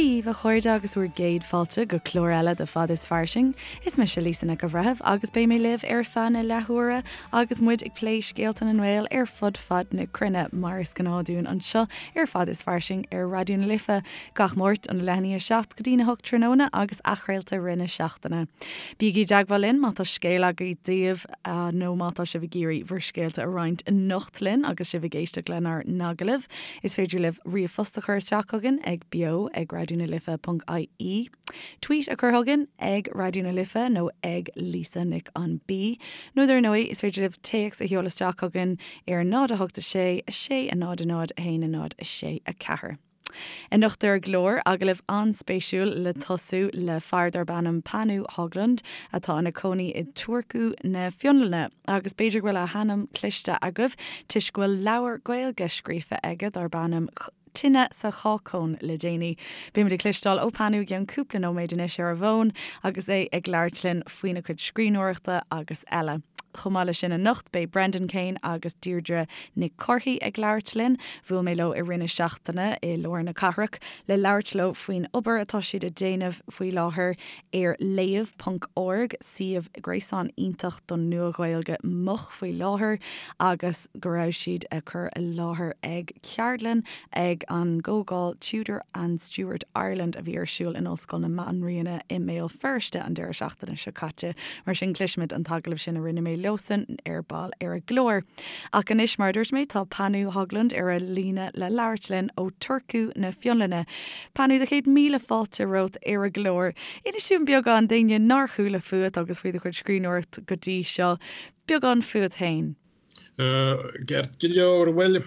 Dia dhaoibh a chairde agus bhur gcéad fáilte go clár eile de Fad is Fairsing. Is mise Lisa Nic an Bhreithimh agus beidh mé libh ar feadh na leathuaire agus muid ag plé scéalta na nGael ar fud fad na cruinne mar is gnáth dúinn anseo ar Fad is Fairsing ar Raidió na Life gach Máirt óna leath i ndiaidh 7 go dtína 8 tráthnóna agus athchraolta i rith na seachtaine. Bígí i dteagmháil linn má tá scéal agaibh daoibh nó má tá sibh ag iarraidh bhur scéalta a roinnt anocht linn agus sibh ag éisteacht lenár n-agallamh. Is féidir libh ríomhphost a chur isteach chugainn ag beo ag raidionalife ponc ie, tweet a chur chugainn ag Raidió na Life nó ag Lisa Nic an B, nó dar ndóigh is féidir libh téacs a sheoladh isteach chugainn ar 0 8 6 6 0 0 1 0 6 4. Anocht ar an gclár, agallamh an-spéisiúil le tosú le fear darb ainm Panu Höglund atá ina cónaí i Turku na Fionlainne agus b'fhéidir go bhfuil a hainm cloiste agaibh toisc go bhfuil leabhar Gaeilge scríofa aige darb ainm Tine sa Chácóin le déanaí. Beimid ag cloisteáil ó Panu i gceann cúpla nóiméad anois ar an bhfón agus é ag labhairt linn faoina chuid scríbhneoireachta agus eile. Chomh maith leis sin anocht beidh Brendan Kane agus Deirdre Nic Cárthaigh ag labhairt linn. Bhuail mé leo i rith na seachtaine i lár na cathrach le labhairt leo faoin obair atá siad ag déanamh faoi láthair ar léamh ponc org, suíomh gréasáin iontach don Nua-Ghaeilge Moch faoi láthair agus go raibh siad ag cur i láthair ag ceardlann ag an gcomhdháil Tudor and Stuart Ireland a bhí ar siúl in Ollscoil na Banríona i mBéal Feirste an deireadh seachtaine seo caite. Mar sin cloisfimid an t-agallamh sin a rinne mé leosan ar ball ar an gclár. Ach anois, mar a dúirt mé, tá Panu Höglund ar an líne le labhairt linn ó Turku na Fionlainne. Panu, do chéad míle fáilte romhat ar an gclár. Inis dúinn beagán d'éinne nár chuala fúat agus faoi do chuid scríbhneoireacht go dtí seo, beagán fúat féin. Ceart go leor, bhuel,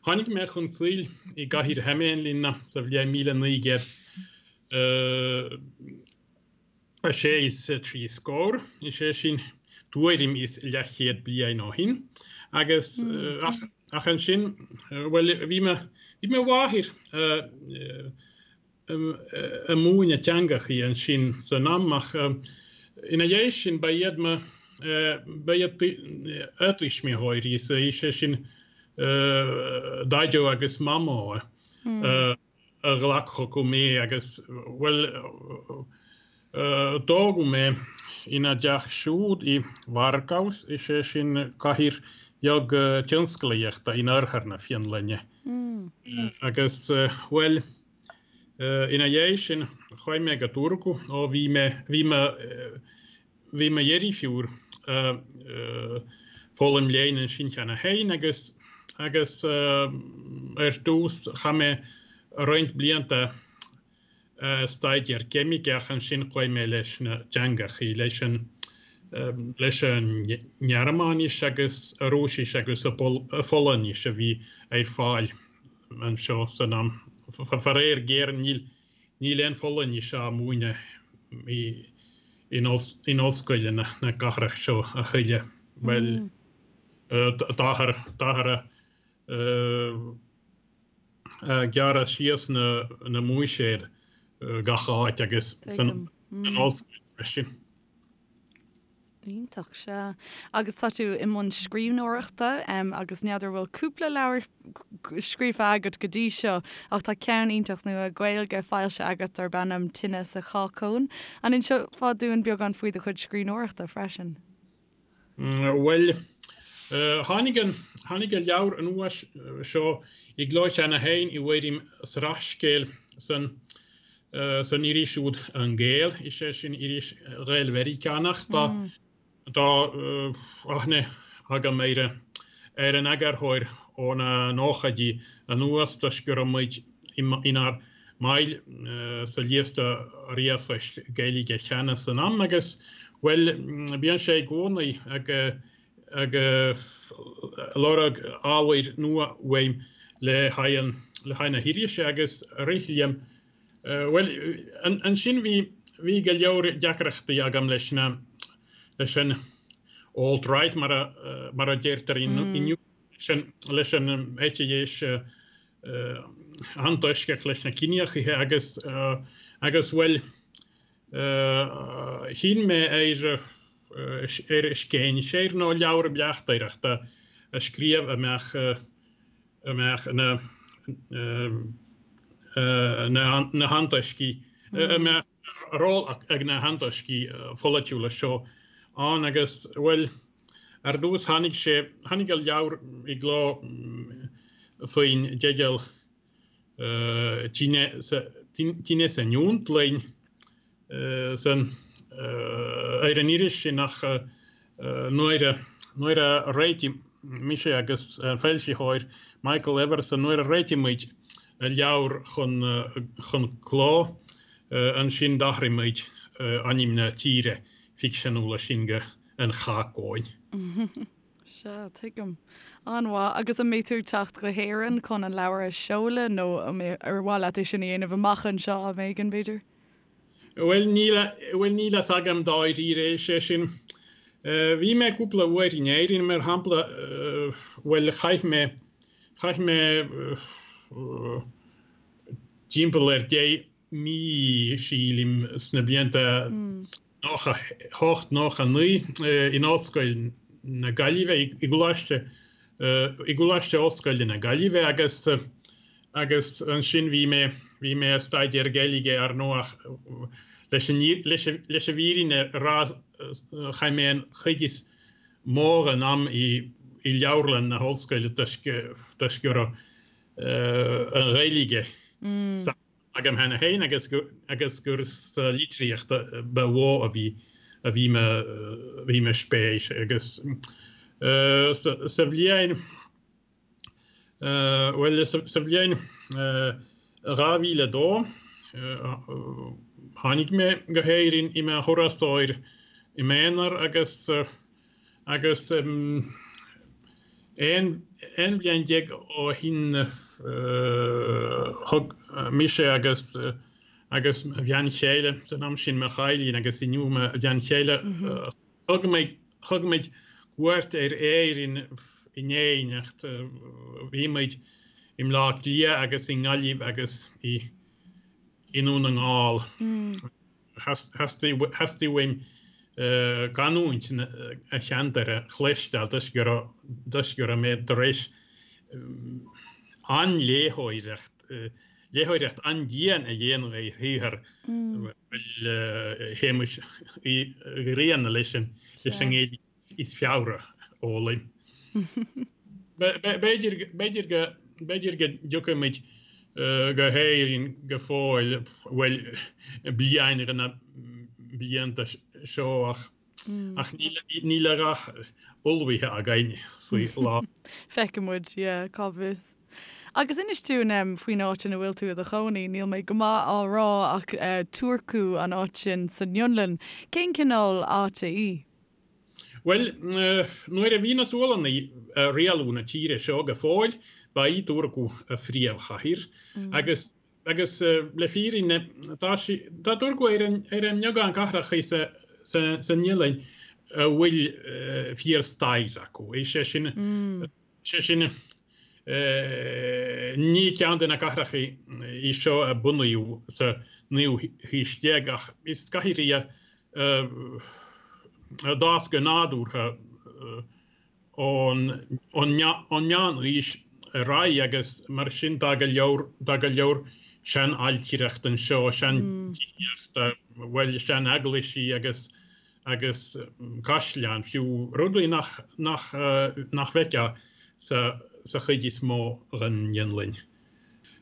tháinig mé chun saoil i gcathair Hämeenlinna sa bhliain 1966 scór, is é sin tuairim is leathchéad bliain ó shin, agus ach ansin, bhuel, bhí mo mháthair ag múineadh teangachaí ansin san am ach ina dhiaidh sin ba iad mo ba iad a tuismitheoirí, is é sin Daideo agus Mamó a ghlac chucu mé agus bhuel tógadh mé ina dteach siúd i Varkaus, is é sin cathair bheag tionsclaíochta in oirthear na Fionlainne agus bhuel Ina dhiaidh sin, chuaigh mé go Turku ó bhí mé, bhí mo, bhí mo dheirfiúr ag foghlaim léinn ansin cheana féin agus, agus ar dtús chaith mé roinnt blianta ag staidéar ceimice ach ansin chuaigh mé leis na teangachaí, leis an, leis an nGearmáinis agus an Rúisis agus an Pholainnis a bhí ar fáil. anseo san am. Faraor géar níl níl aon Pholainnis á múineadh in in ollscoileanna na cathrach seo a thuilleadh. Bhuel táthar táthar ag gearradh síos na na mbuiséad gach áit agus san ollscoil freisin. Iontach, sea. Agus tá tú i mbun scríbhneoireachta agus n'fheadar bhfuil cúpla leabhar scríofa agat go dtí seo ach tá ceann iontach nua Gaeilge foilsithe agat darb ainm Tine sa Chácóin. An inseofá dúinn beagán faoi do chuid scríbhneoireachta freisin? Bhuel, tháinig an, tháinig an leabhar nua seo i gcló cheana féin i bhfoirm sraithscéil san san iris úd An Gael, is é sin iris Ghael-Mheiriceánach. Tá tá aithne agam ar ar an eagarthóir ó na nóchaidí anuas toisc go raibh muid inár mbaill sa liosta ríomhphoist Gaeilge cheana san am agus, bhuel, bíonn sé i gcónaí ag ag lorg ábhair nua uaim le haghaidh le haghaidh na hirise agus rith liom Bhuel, ansin bhí, bhí go leor deacrachtaí agam leis na, leis an alt-right mar a, mar a deirtear inniu, leis an, leis an eite dheis antoisceach leis na ciníochaithe agus, agus bhuel, chinn mé ar, ar scéinséir nó leabhar bleachtaireachta a scríobh a mbeadh, a mbeadh ina. Na hantoiscí, a mbeadh ról ag na hantoiscí pholaitiúla seo ann agus, bhuel, ar dtús tháinig sé, tháinig an leabhar i gcló faoin dteideal Tine san Fhionlainn san, ar an iris sin ach nuair a, nuair a réitigh mise agus an foilsitheoir Michael Everson, nuair a réitigh muid an leabhar chun, chun cló, ansin d'athraigh muid ainm na tíre ficseanúla sin go An Chacóin. Sea, tuigim. An-mhaith. Agus an mbeidh tú ag teacht go hÉirinn chun an leabhar a sheoladh nó ar mhaith leat é sin a dhéanamh amach anseo am éigin, b'fhéidir? Bhuel, níl a, bhuel, níl a fhios agam dáiríre, is é sin, bhí mé cúpla uair in Éirinn, mar shampla, bhuel, chaith mé, chaith mé timpeall ar 10 mí, sílim, sna blianta 98, 99 in Ollscoil na Gaillimhe, i gColáiste, i gColáiste Ollscoile na Gaillimhe agus, agus ansin bhí mé, bhí mé ag staidéar Gaeilge ar ndóigh ach leis an, leis an, leis an bhfírinne a rá chaith mé an chuid is mó den am i, i leabharlann na hollscoile toisc, toisc go raibh an Ghaeilge agam cheana féin agus gur, agus gur sa litríocht ba mhó a bhí, a bhí mo, bhí mo spéis agus sa, sa bhliain, Bhuel, sa bhliain 2002, tháinig mé go hÉirinn i mo thurasóir i m'aonar agus agus 11 bhliain ó shin thug mise agus agus mo bhean chéile, san am sin mo chailín agus inniu mo bhean chéile, Thug muid, thug muid cuairt ar Éirinn in éineacht. Bhí muid i mBleá Cliath agus i nGaillimh agus i i nDún na nGall. Theastaigh, theastaigh uaim canúint an cheantair a chloisteáil toisc go raibh, toisc go raibh mé tar éis an-léitheoireacht, léitheoireacht an-dian a dhéanamh ar shaothar Shéamuis Uí Ghrianna leis an nGaeilge is fearr a fhoghlaim. B'fhéidir go b'fhéidir go dtiocfaidh muid go hÉirinn go fóill, bhuel, bliain de na blianta seo ach ach níl a dhath ullmhaithe againn faoi láthair. Feicfidh muid, yeah, cá bhfios. Agus inis dúinn faoin áit ina bhfuil tú i do chónaí, níl mé go maith á rá ach Turku an áit sin san Fhionlainn. Cén cineál áite í? Bhuel, nuair a bhí na Sualannaigh ag rialú na tíre seo go fóill, ba í Turku a phríomhchathair agus Agus le fírinne, tá sí, tá Turku ar an, ar an mbeagán cathracha sa, san Fhionlainn a bhfuil fíor-stair acu. Is é sin, is é sin, ní ceann de na cathracha í seo a bunaíodh sa naoú haois déag ach is cathair í a d'fhás go nádúrtha ón meánaois ar aghaidh agus mar sin tá go leor, tá go leor sean-ailtireacht anseo, sean-tithíocht, bhuel, sean-eaglaisí agus, agus caisleáin fiú, rudaí nach, nach, nach bhfeicfeá sa, sa chuid is mó den Fhionlainn.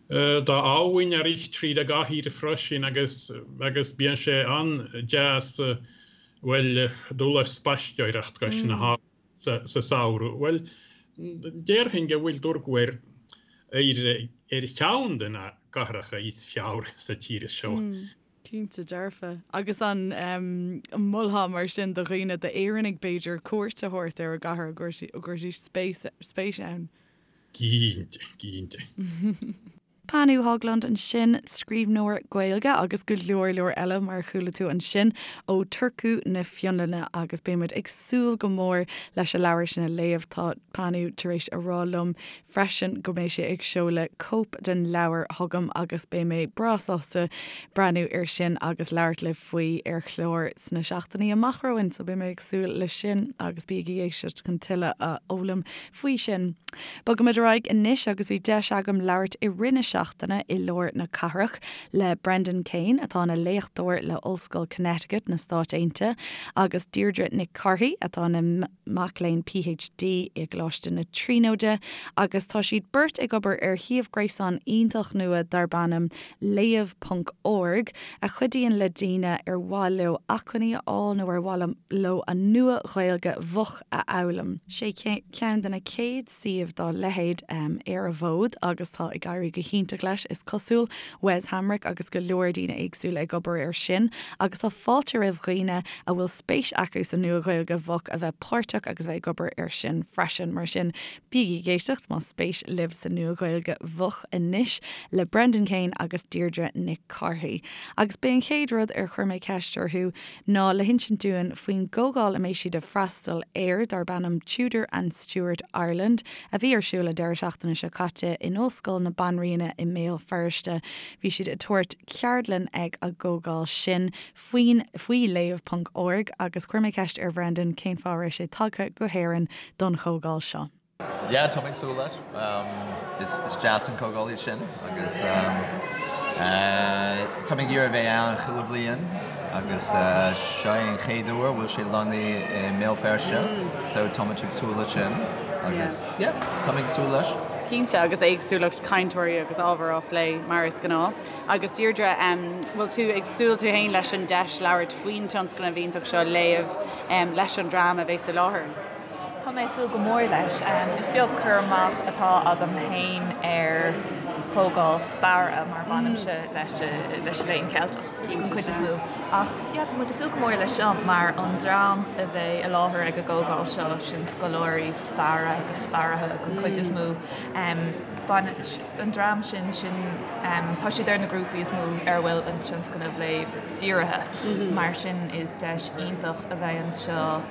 Tá abhainn ag rith tríd an gcathair freisin agus, agus bíonn sé an-deas, bhuel, dul ar spaisteoireacht cois na habhann. sa samhradh? Bhuel, déarfainn go bhfuil Turku ar ar cheann de na cathracha is fearr sa tír seo. Cinnte dearfa. Agus an molfá mar sin do dhaoine, d'Éireannaigh b'fhéidir, cuairt a thabhairt ar an gcathair, an gcuirfidís spéis ann? Cinnte, cinnte. Panu Höglund ansin, scríbhneoir Gaeilge agus go leor leor eile mar a chuala tú ansin ó Turku na Fionlainne agus beidh muid ag súil go mór leis an leabhar sin a léamh. Tá Panu tar éis a rá liom freisin go mbeidh sé ag seoladh cóip den leabhar chugam agus beidh mé breá sásta breathnú air sin agus labhairt libh faoi ar chlár sna seachtainí amach romhainn so beidh mé ag súil leis sin agus bígí ag éisteacht chun tuilleadh a fhoghlaim faoi sin. Bogaimid ar aghaidh anois agus bhí deis agam labhairt i rith na seachtaine. seachtaine i lár na cathrach le Brendan Kane, atá ina léachtóir le Ollscoil Connecticut na Stáit Aontaithe, agus Deirdre Nic Cárthaigh, atá ina mac léinn PhD i gColáiste na Tríonóide, agus tá siad beirt ag obair ar shuíomh gréasáin iontach nua darb ainm Léamh ponc org, a chuidíonn le daoine ar mhaith leo acmhainní a fháil nó ar mhaith leo an Nua-Ghaeilge Mhoch a fhoghlaim. Sé ceann de na chéad suíomh dá leithéid ar an bhfód agus tá ag éirí go hiontach leis, is cosúil. Wes Hamrick agus go leor daoine éagsúla ag obair air sin agus tá fáilte roimh dhaoine a bhfuil spéis acu sa Nua-Ghaeilge Mhoch a bheith páirteach agus a bheith ag obair air sin freisin. Mar sin, bígí ag éisteacht más spéis libh sa Nua-Ghaeilge Mhoch anois le Brendan Kane agus Deirdre Nic Cárthaigh. Agus b'é an chéad rud ar chuir mé ceist orthu ná le hinsint dúinn faoin gcomhdháil a mbeidh siad ag freastal air darb ainm Tudor and Stuart Ireland a bhí ar siúl an deireadh seachtaine seo caite in Ollscoil na Banríona i mBéal Feirste. Bhí siad ag tabhairt ceardlann ag an gcomhdháil sin faoin faoi Léamh ponc org agus chuir mé ceist ar Bhrendan cén fáth a raibh sé tagtha go hÉirinn don chomhdháil seo. Yeah, tá mé ag súil leis. Is deas an comhdháil í sin agus tá mé ag iarraidh a bheith ann chuile bhliain agus seo é an chéad uair a bhfuil sé lonnaithe i mBéal Feirste so tá muid ag súil leis sin agus yeah, tá mé ag súil leis. Cinnte, agus éagsúlacht cainteoirí agus ábhar á phlé mar is gnáth. Agus Deirdre, bhfuil tú ag súil tú féin leis an deis labhairt faoin tionscnamh iontach seo, Léamh, leis an dream a bheas i láthair? Tá mé ag súil go mór leis. Is beag cur amach atá agam féin ar chomhdháil staire mar bainimse leis an Léann Ceilteach den chuid is mó. Ach yeah, tá muid ag súil go mór leis seo mar an dream a bheidh i láthair ag an gcomhdháil seo, sin scoláirí staire agus staraithe den chuid is mó. An dream sin, sin, tá siad ar na grúpaí is mó ar a bhfuil an tionscnamh Léamh dírithe. Mar sin is deis iontach a bheidh anseo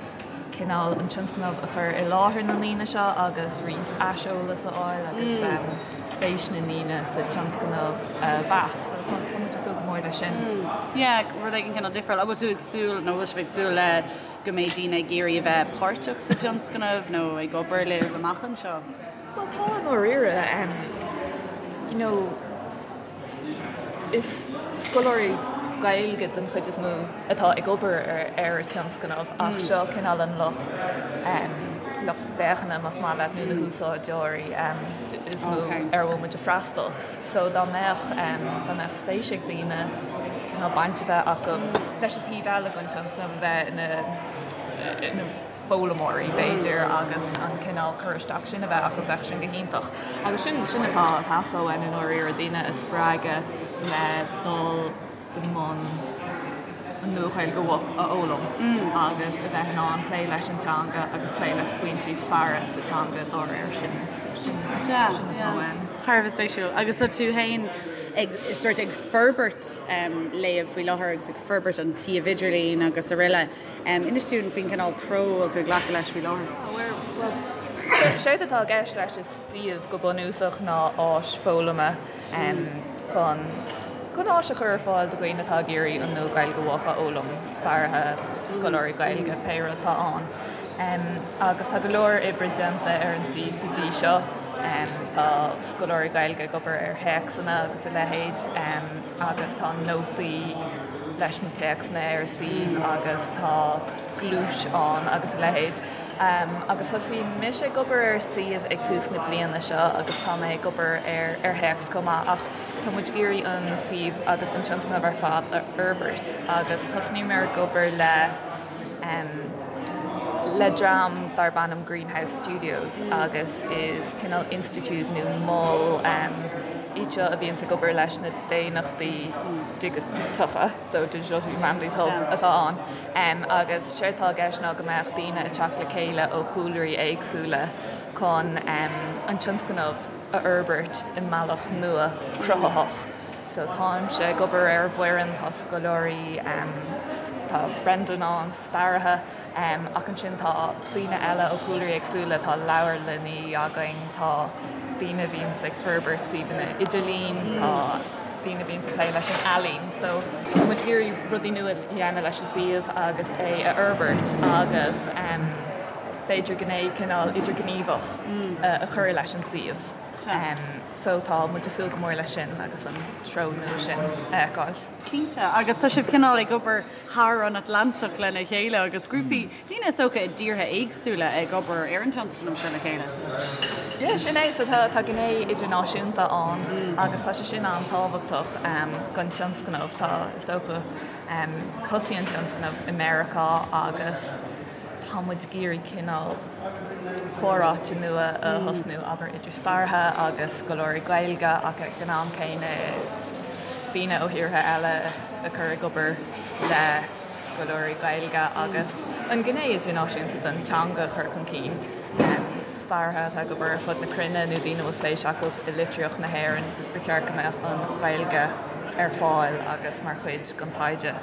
cineál an tionscnamh a chur i láthair na ndaoine seo agus roinnt aiseolas a fháil agus spéis na ndaoine sa tionscnamh a mheas. So tá tá muid ag súil go mór leis sin. Yeah, rud éigin cineál difriúil. An bhfuil tú ag súil nó bhfuil sibh ag súil le go mbeidh daoine ag iarraidh a bheith páirteach sa tionscnamh nó ag obair libh amach anseo? Bhuel tá i ndáiríre. You know, Is scoláirí Gaeilge den chuid is mó atá ag obair ar an tionscnamh ach seo cineál an lucht lucht féachana más maith leat nó na húsáideoirí is mó ar a bhfuil muid ag freastal. So dá mbeadh dá mbeadh spéis ag daoine cineál baint a bheith acu leis an taobh eile den tionscnamh a bheith ina foghlaimeoirí, b'fhéidir, agus an cineál cur isteach sin a bheith acu, bheadh sin go hiontach. Agus sin, sin atá ag teastáil uainn i ndáiríre, daoine a spreagadh le dul i mbun an Nua-Ghaeilge Mhoch a fhoghlaim agus a bheith in ann plé leis an teanga agus plé le foinsí staire sa teanga dá réir sin. So sin, sin atá uainn. Thar a bheith spéisiúil. Agus tá tú féin ag, sort ag forbairt Léamh faoi láthair agus ag forbairt an tsuíomh idirlín agus araile. Inis dúinn faoin gcineál treo a bhfuil tú ag glacadh leis faoi láthair. Bhuel, séard atá i gceist leis an suíomh go bunúsach ná áis foghlama chun chun áis a chur ar fáil do dhaoine atá ag iarraidh an Nua-Ghaeilge Mhoch a fhoghlaim, staraithe, scoláirí Gaeilge, pé rud atá ann. Agus tá go leor oibre déanta ar an suíomh go dtí seo. Tá scoláirí Gaeilge ag obair ar théacsanna agus a leithéid agus tá nótaí leis na téacsanna ar an suíomh agus tá gluais ann agus a leithéid. Agus thosaigh mise ag obair ar an suíomh ag tús na bliana seo agus tá mé ag obair ar ar théacs chomh maith ach tá muid ag iarraidh an suíomh agus an tionscnamh ar fad a fhorbairt agus thosnaíomar ag obair le le dream darb ainm Greenhouse Studios agus is cineál institiúid nó mol iad seo a bhíonns ag obair leis na daonnachtaí digiteacha, so Digital Humanities Hub atá ann, agus séard atá i gceist ná go mbeadh daoine ag teacht le chéile ó chúlraí éagsúla chun an tionscnamh a fhorbairt i mbealach nua cruthaitheach. So táimse ag obair ar an bhfoireann, tá scoláirí, tá Brendan ann, staraithe, ach ansin tá daoine eile ó chúlraí éagsúla, tá leabharlannaí againn, tá daoine a bhíonns ag forbairt suíomhanna idirlín, tá daoine a bhíonns ag plé leis an ealaín. So tá muid ag iarraidh rudaí nua a dhéanamh leis an suíomh agus é a fhorbairt agus b'fhéidir gné cineál idirghníomhach a chur leis an suíomh. So tá muid ag súil go mór leis sin agus an treo nua sin a fheiceáil. Cinnte, agus tá sibh cineál ag obair thar an Atlantach lena chéile agus grúpaí daoine is dócha i dtíortha éagsúla ag obair ar an tionscnamh seo le chéile. Yeah, sin é. So tá gné idirnáisiúnta ann agus tá sé sin an-tábhachtach don tionscnamh. Tá, is dócha, thosaigh an tionscnamh i Meiriceá agus tá muid ag iarraidh cineál comhráite nua a thosnú, abair, idir staraithe agus scoláirí Gaeilge ach ag an am céanna daoine ó thíortha eile a chur ag obair le scoláirí Gaeilge agus an ghné idirnáisiúnta den teanga a chur chun cinn. Staraithe atá ag obair ar fud na cruinne nó daoine a bhfuil spéis acu i litríocht na hÉireann, ba cheart go mbeadh an Ghaeilge ar fáil agus mar chuid den taighde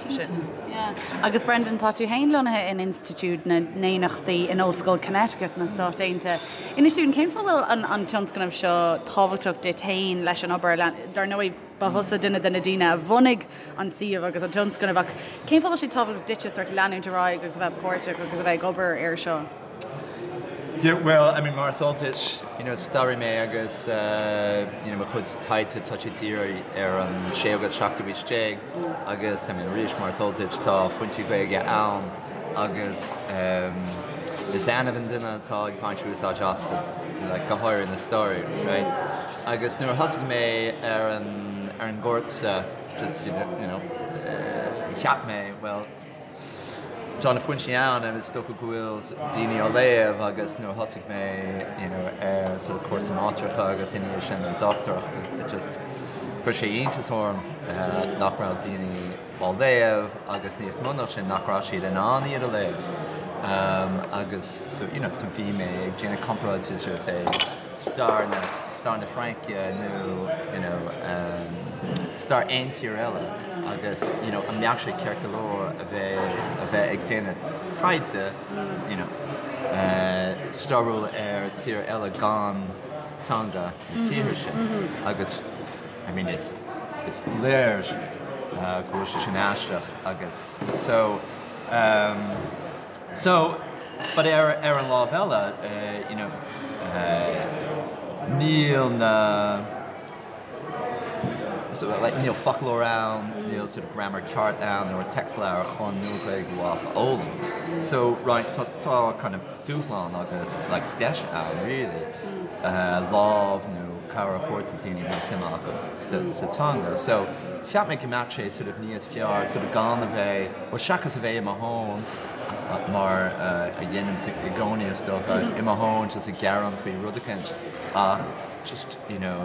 sin. Yeah. Agus Brendan, tá tú féin lonnaithe in Institiúid na nDaonnachtaí in Ollscoil Connecticut na Stát Aontaithe. Inis dúinn, cén fáth a bhfuil an an tionscnamh seo tábhachtach duit féin leis an obair? Dar ndóigh, ba thusa duine de na daoine a bhunaigh an suíomh agus an tionscnamh ach cén fáth a bhfuil sé tábhachtach duitse sort leanúint ar aghaidh agus a bheith páirteach agus a bheith ag obair air seo? Yeah, well, I mean, mar is eol duit, you know, staraí mé agus uh, you know, mo chuid taighde tá sé dírithe ar an séú agus seachtú haois déag agus I mean, arís mar is eol duit tá foinsí Gaeilge ann agus um, is annamh an duine atá ag baint úsáid astu, like, go háirithe na staraithe, right? Agus nuair a thosaigh mé ar an, ar an gcúrsa, just, you know, uh, cheap mé, well, Tá na foinsí ann agus is dócha go bhfuil daoine á léamh agus nuair a thosaigh mé you know ar sort of cúrsa máistreachta agus ina dhiaidh sin an dochtúireacht it just chuir sé iontas orm nach raibh daoine á léamh agus níos mó ná sin nach raibh siad in ann iad a léamh agus so you know so bhí mé ag déanamh comparáid idir say stair na stair na Fraince nó you know stair aon tír eile agus you know an mbeadh sé ceart go leor a bheith a bheith ag déanamh taighde you know stairiúil ar tír eile gan teanga na tíre sin agus I mean is is léir go bhfuil sé sin aisteach agus so So, but ar ar an lámh eile, you know, níl na, so like níl foclóir ann, níl sort of grammar ceart ann nó téacsleabhar chun Nua-Ghaeilge Mhaigh a fhoghlaim. So, right, so tá kind of dúshlán agus like deis ann really, lámh nó cabhair a thabhairt do daoine a bhfuil suim acu sa sa teanga. So, cheap mé go mbeadh sé sort of níos fearr sort of gan a bheith, bhuel seachas a bheith i mo thóin, mar a dhéanaimse i gcónaí is dócha, i mo thóin just ag gearán faoi rud eicínt ach just you know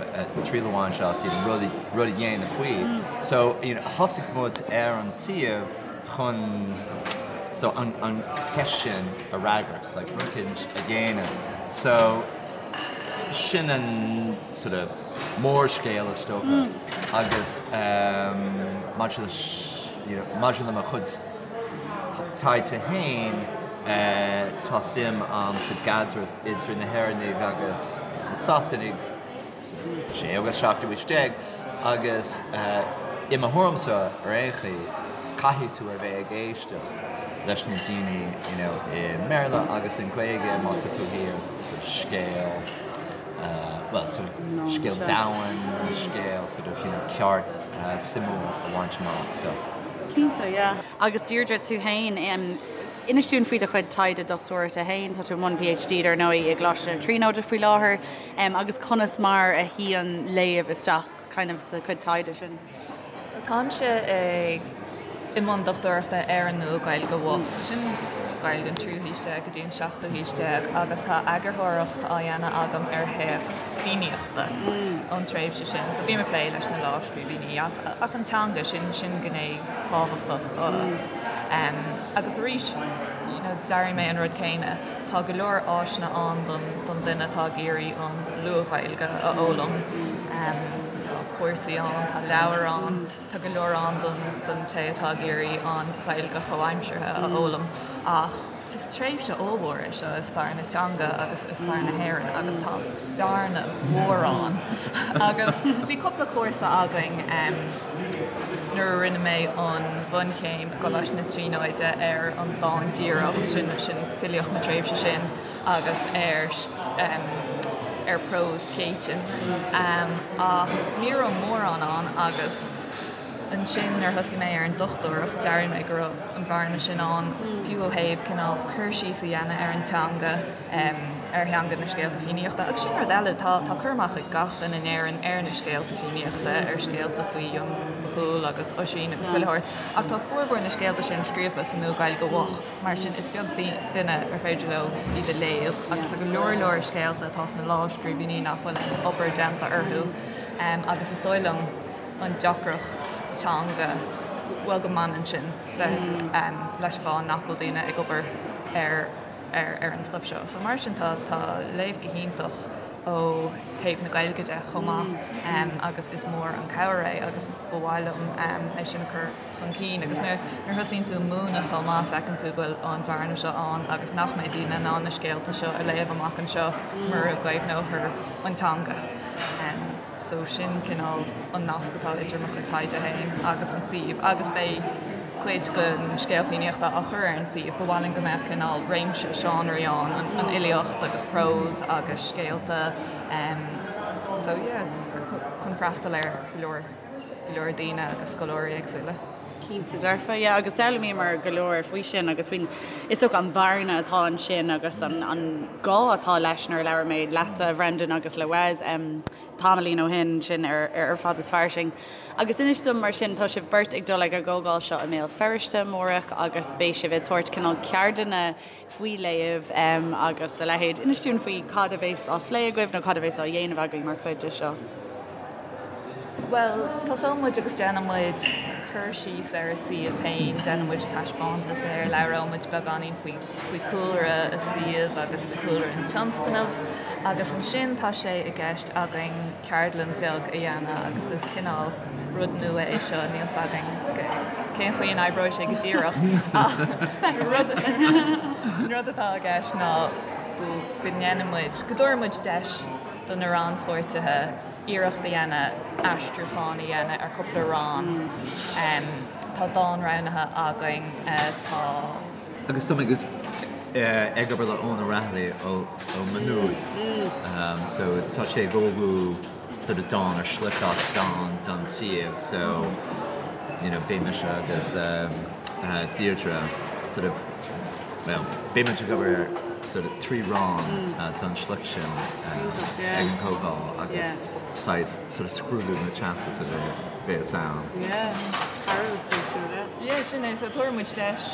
triail a bhaint as you know rud rud a dhéanamh faoi. So you know thosaigh muid ar an suíomh chun so an an cheist sin a fhreagairt like rud eicínt a dhéanamh. So sin an sort of mórscéal is dócha agus um maidir leis you know maidir le mo chuid taighde féin, tá suim a'm sa gcaidreamh idir na hÉireannaigh agus na Sasanaigh sa séú agus seachtú haois déag agus i mo thuairimse ar aon chaoi, caithfidh tú a bheith ag éisteacht leis na daoine you know i mBéarla agus i nGaeilge má tá tú ag iarraidh sort of scéal bhuel sort of scéal domhain, scéal sort of you know ceart suimiúil a bhaint amach so. Cinnte, yeah. Agus Deirdre, tú féin, inis dúinn faoi do chuid taighde dochtúireachta féin, tá tú i mbun PhD dar ndóigh i gColáiste na Tríonóide faoi láthair, agus conas mar a shuíonn léamh isteach kind of sa chuid taighde sin? Táimse ag i mbun dochtúireachta ar an Nua-Ghaeilge Mhoch, sin Gaeilge an tríú haois déag go dtí an seachtú haois déag, agus tá eagarthóireacht á dhéanamh agam ar théacs Fiannaíochta ón tréimhse sin. So bím ag plé leis na lámhscríbhinní ach ach an teanga, sin sin gné thábhachtach. Agus arís, you know, d'airigh mé an rud céanna, tá go leor áiseanna ann don don duine atá ag iarraidh an Luath-Ghaeilge a fhoghlaim. Tá cúrsaí ann, tá leabhair ann, tá go leor ann don té atá ag iarraidh an Ghaeilge chomhaimseartha a fhoghlaim ach is tréimhse ollmhór é seo i stair na teanga agus i stair na hÉireann agus tá bearna mhór ann. Agus bhí cúpla cúrsa againn nuair a rinne mé an bhunchéim i gColáiste na Tríonóide ar an dán díreach, sin sin filíocht na tréimhse sin agus ar. ar prós Céitinn ach ní raibh mórán ann agus ansin nuair a thosaigh mé ar an dochtúireacht d'airigh mé go raibh an bhearna sin ann fiú ó thaobh cineál cur síos a dhéanamh ar an teanga ar theanga na scéalta Fiannaíochta agus sin rud eile tá tá cur amach ag gach duine in Éirinn ar na scéalta Fiannaíochta ar scéalta faoi Fhionn Mac Cumhaill agus Oisín agus chuile shórt ach tá formhór na scéalta sin scríofa sa Nua-Ghaeilge Mhoch. Mar sin, is beag duine ar féidir leo iad a léamh agus tá go leor leor scéalta atá sna lámhscríbhinní nach bhfuil aon obair déanta orthu agus is dóigh liom an deacracht teanga, bhuel go mbaineann sin leis an bhfáth nach bhfuil daoine ag obair ar ar an stuif seo. So mar sin tá tá léamh go hiontach ó thaobh na Gaeilge de chomh maith agus is mór an cabhair é agus ba mhaith liom é sin a chur chun cinn agus nuair a thosaíonn tú ag múineadh chomh maith feiceann tú go bhfuil an bhearna seo ann agus nach mbeidh daoine in ann na scéalta seo a léamh amach anseo mura gcaomhnófar an teanga. So sin cineál an nasc atá idir mo chuid taighde féin agus an suíomh agus beidh cuid den scéal Fiannaíochta á chur ar an suíomh. Ba mhaith linn go mbeadh cineál réimse seánraí ann, an fhilíocht agus prós agus scéalta so yeah chun freastal ar go leor. go leor daoine agus scoláirí éagsúla. Cinnte dearfa, yeah, agus d'fhoghlaimíomar go leor faoi sin agus faoin, is dócha an bhearna atá ansin agus an, an gá atá leis nuair a labhair mé leatsa, a Bhrendan, agus le Wes um, tamaillín ó shin sin ar, ar Fad is Fairsing. Agus inis dom mar sin, tá sibh beirt ag dul ag an gcomhdháil seo i mBéal Feirste amárach agus beidh sibh ag tabhairt cineál ceardlanna faoi léamh agus a leithéid. Inis dúinn faoi cad a bheas á phlé agaibh nó cad a bheas á dhéanamh agaibh mar chuid de seo. Bhuel, tosóidh muid agus déanfaidh muid cur síos ar an suíomh féin, déanfaidh muid taispeántas air, labhróidh muid beagáinín faoi faoi chúlra an suímh agus faoi chúlra an tionscnaimh agus ansin tá sé i gceist againn ceardlann bheag a dhéanamh agus is cineál rud nua é seo, níl 's againn cén chaoi a n-oibreoidh sé go díreach ach an rud atá i gceist ná go ndéanfaidh muid, go dtabharfaidh muid deis do na rannpháirtithe iarracht a dhéanamh aistriúchán a dhéanamh ar cúpla rann. Tá dán roghnaithe againn, tá. Agus tá mé ag obair le Eoin O'Rahilly ó Maigh Nuad so tá sé ag ullmhú sort of dán ar shliocht as dán don suíomh so you know beidh mise agus Deirdre sort of well beidh muid ag obair ar sort of 3 rann don sliocht sin ag an gcomhdháil agus saghas sort of scrúdú na teastas a bheas ann. Yeah, thar a bheith spéisiúil, yeah. Yeah, sin é. So tabharfaidh muid deis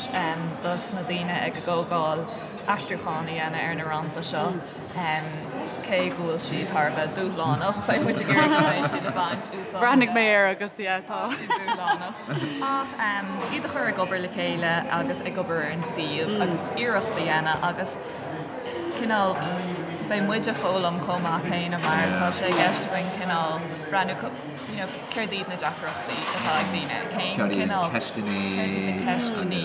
dos na daoine ag an gcomhdháil aistriúchán a dhéanamh ar na rannta seo. Cé go bhfuil siad thar a bheith dúshlánach, beidh muid ag iarraidh go mbeidh siad ag baint úsáid. Bhreathnaigh mé air agus yeah, tá. dúshlánach. Ach iad a chur ag obair le chéile agus ag obair ar an suíomh agus iarracht a dhéanamh agus cineál beidh muid ag foghlaim chomh maith céanna mar tá sé i gceist againn cineál breathnú you know céard iad na deacrachtaí atá ag daoine, cén Céard iad na cineál, ceisteanna céard iad na ceisteanna,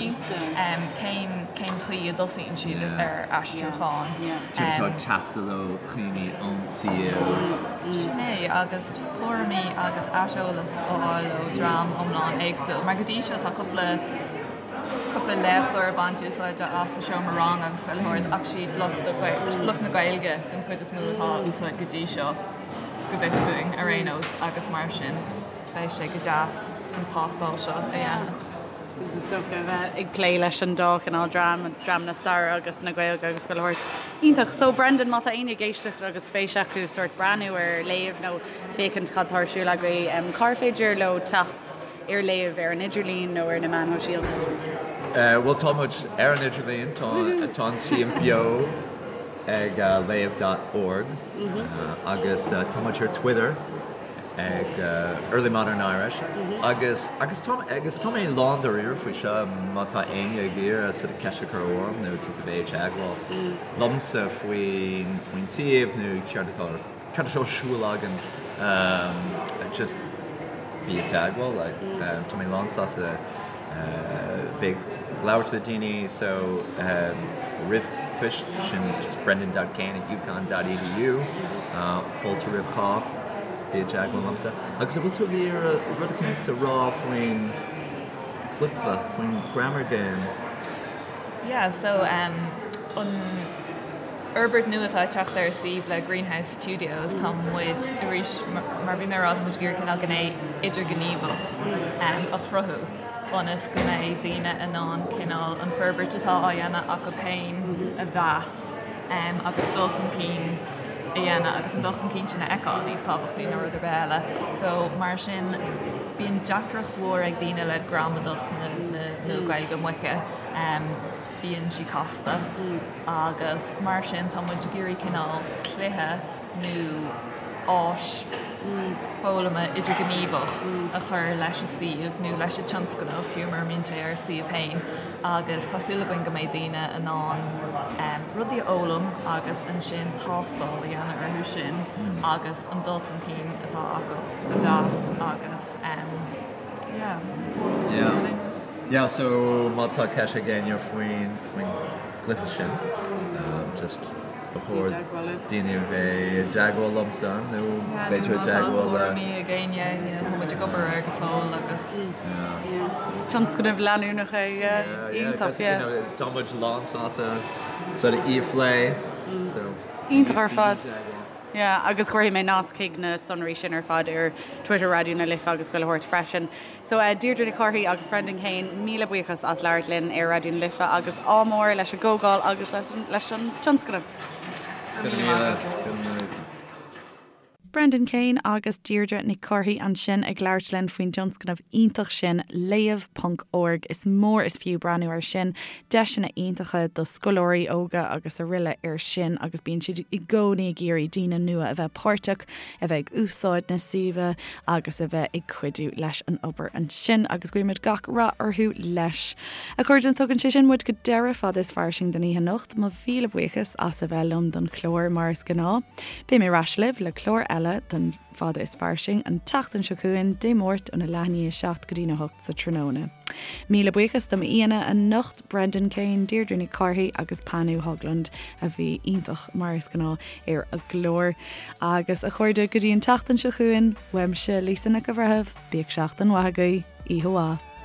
cén cén chaoi a dtosaíonn siad ar aistriúchán. Céard atá ag teastáil ó dhaoine ón suíomh. Sin é, agus just tuairimí agus aiseolas a fháil ó dream iomlán éagsúil mar go dtí seo tá cúpla cúpla léachtóir ag baint úsáide as sa seomra ranga agus chuile shórt ach siad lucht lucht na Gaeilge den chuid is mó atá á úsáid go dtí seo, go bhfios dúinn ar aon nós, agus mar sin beidh sé go deas an tástáil seo a dhéanamh. Agus is dócha a bheith ag plé leis an dá chineál dream, dream na staire agus na Gaeilge agus chuile shórt. Iontach. So Brendan, má tá éinne ag éisteacht agus spéis acu sórt breathnú ar léamh nó féachaint cad tá ar siúl agaibh, cár féidir leo teacht ar léamh ar an idirlíon nó ar na meáin shóisialta? Bhuel, tá muid ar an idirlíon, tá an suíomh beo ag léamh dot org agus tá muid ar Twitter ag Early Modern Irish agus agus tá agus tá mé lán dáiríre faoi seo má tá éinne ag iarraidh sort of ceist a chur orm nó just a bheith ag teagmháil liomsa faoin faoin suíomh nó céard atá Cad atá ar siúl againn? Just bí i dteagmháil like tá mé lán sásta bheith ag labhairt le daoine so ríomhphost sin just brendan dot kane at uconn dot edu fáilte roimh chách bí i dteagmháil liomsa. Agus an bhfuil tú ag iarraidh rud eicínt a rá faoin cluiche, faoin grammar game? Yeah so an. fhorbairt nua atá ag teacht ar an suíomh le Greenhouse Studios, tá muid, arís, mar a bhí mé ag rá, tá muid ag iarraidh cineál gné idirghníomhach a chruthú ionas go mbeidh daoine in ann cineál an forbairt atá á dhéanamh acu féin a mheas agus dul chun cinn a dhéanamh agus an dul chun cinn sin a fheiceáil níos tábhachtaí ná rud ar bith eile. So mar sin bíonn deacracht mhór ag daoine le gramadach na Nua-Ghaeilge Moiche. Bíonn sí casta agus mar sin tá muid ag iarraidh cineál cluiche nó áis foghlama idirghníomhach a chur leis an suíomh nó leis an tionscnamh, fiú mura mbíonn sé ar an suíomh féin, agus tá súil againn go mbeidh daoine in ann rudaí a fhoghlaim agus ansin tástáil a dhéanamh orthu sin agus an dul chun cinn atá acu a mheas agus yeah. Yeah. Yeah, so má tá ceist ag éinne faoin faoin gcluiche sin, just ba chóir daoine a bheith i dteagmháil liomsa nó b'fhéidir i dteagmháil le. Tuairimí ag éinne, tá muid ag obair air go fóill agus. Tionscnamh leanúnach é, yeah. Iontach, yeah. Tá muid lán sásta sort of í a phlé, so. Iontach ar fad. Yeah, agus cuirfidh mé nasc chuig na sonraí sin ar fad ar Twitter Raidió na Life agus chuile shórt freisin. So Deirdre Nic Cárthaigh agus Brendan Kane, míle buíochas as labhairt linn ar Raidió na Life agus ádh mór leis an gcomhdháil agus leis an tionscnamh. Go raibh míle maith agat. Brendan Kane agus Deirdre Nic Cárthaigh ansin ag labhairt linn faoin dtionscnamh iontach sin, Léamh ponc org. Is mór is fiú breathnú air sin. Deiseanna iontacha do scoláirí óga agus araile air sin agus bíonn siad i gcónaí ag iarraidh daoine nua a bheith páirteach, a bheith ag úsáid na suíomha agus a bheith ag cuidiú leis an obair ansin agus guímid gach rath orthu leis. A chairde, tugann sé sin muid go deireadh Fada is Fairsing don oíche anocht. Mo mhíle buíochas as a bheith liom don chlár mar is gnáth. Beidh mé ar ais libh le clár eile den Fada is Fairsing an tseachtain seo chugainn, Dé Máirt óna leath i ndiaidh a 7 go dtína 8 sa tráthnóna. Míle buíochas do m'aíonna anocht, Brendan Kane, Deirdre Nic Cárthaigh agus Panu Höglund a bhí iontach mar is gnáth ar an gclár. Agus a chairde, go dtí an tseachtain seo chugainn, uaimse Lisa Nic an Bhreithimh, bíodh seachtain mhaith agaibh, oíche mhaith.